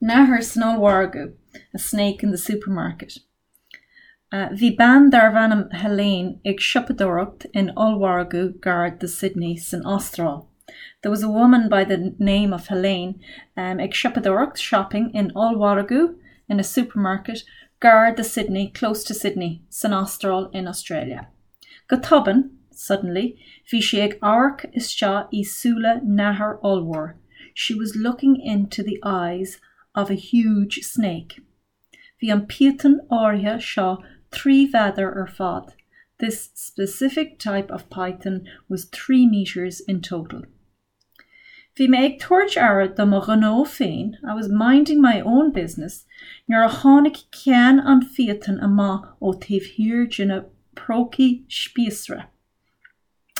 Nathair san ollmhargadh, a snake in the supermarket. Bhí bean darbh ainm Helene ag siopadóireacht in ollmhargadh gar do Sydney san Astráil. There was a woman by the name of Helene ag siopadóireacht, shopping, in ollmhargadh, in a supermarket, gar do Sydney, close to Sydney, san Astráil, in Australia. Go tobann, suddenly, bhí sí ag amharc isteach i súile nathair ollmhór, she was looking into the eyes of a huge snake. Bhí an píotón áirithe seo 3 mhéadar ar fad, this specific type of python was 3 metres in total. Bhí mé ag tabhairt aire do mo ghnó féin, I was minding my own business, nuair a tháinig ceann an phíotóin amach ó taobh thiar de na prócaí spíosra.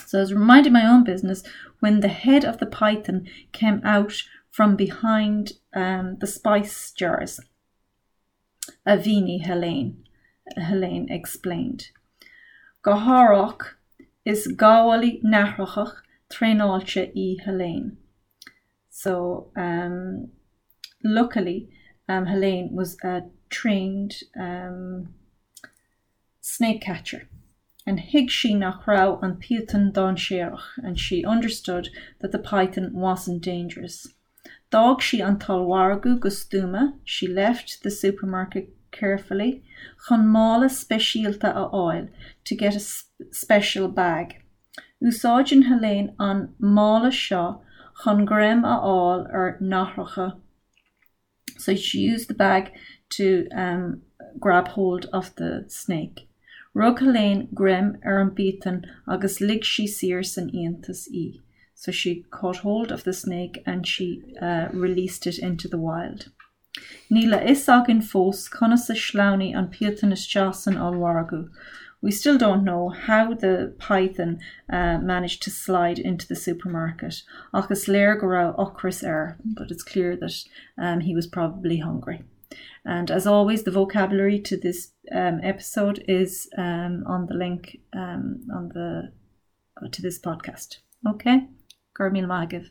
So I was minding my own business when the head of the python came out from behind um, the spice jars. A mhínigh Helene, Helene explained. Go hárach, is gabhálaí nathrach traenáilte í Helene. So um, luckily um, Helene was a trained um, snake catcher and thuig sí nach raibh an píotón dainséarach and she understood that the python wasn't dangerous. D'fhág sí an t-ollmhargadh go stuama, she left the supermarket carefully, chun mála speisialta a fháil, to get a special bag. Úsáideann Helene an mála seo chun greim a fháil ar nathracha. So she used the bag to um, grab hold of the snake. Rug Helene greim ar an bpíotón agus lig sí saor san fhiántas í. So she caught hold of the snake and she uh, released it into the wild. Níl a fhios againn fós conas a shleamhnaigh an píotón isteach san ollmhargadh. We still don't know how the python uh, managed to slide into the supermarket. Ach is léir go raibh ocras air, but it's clear that um, he was probably hungry. And as always, the vocabulary to this um, episode is um, on the link um, on the to this podcast. Okay? Go raibh míle maith agaibh.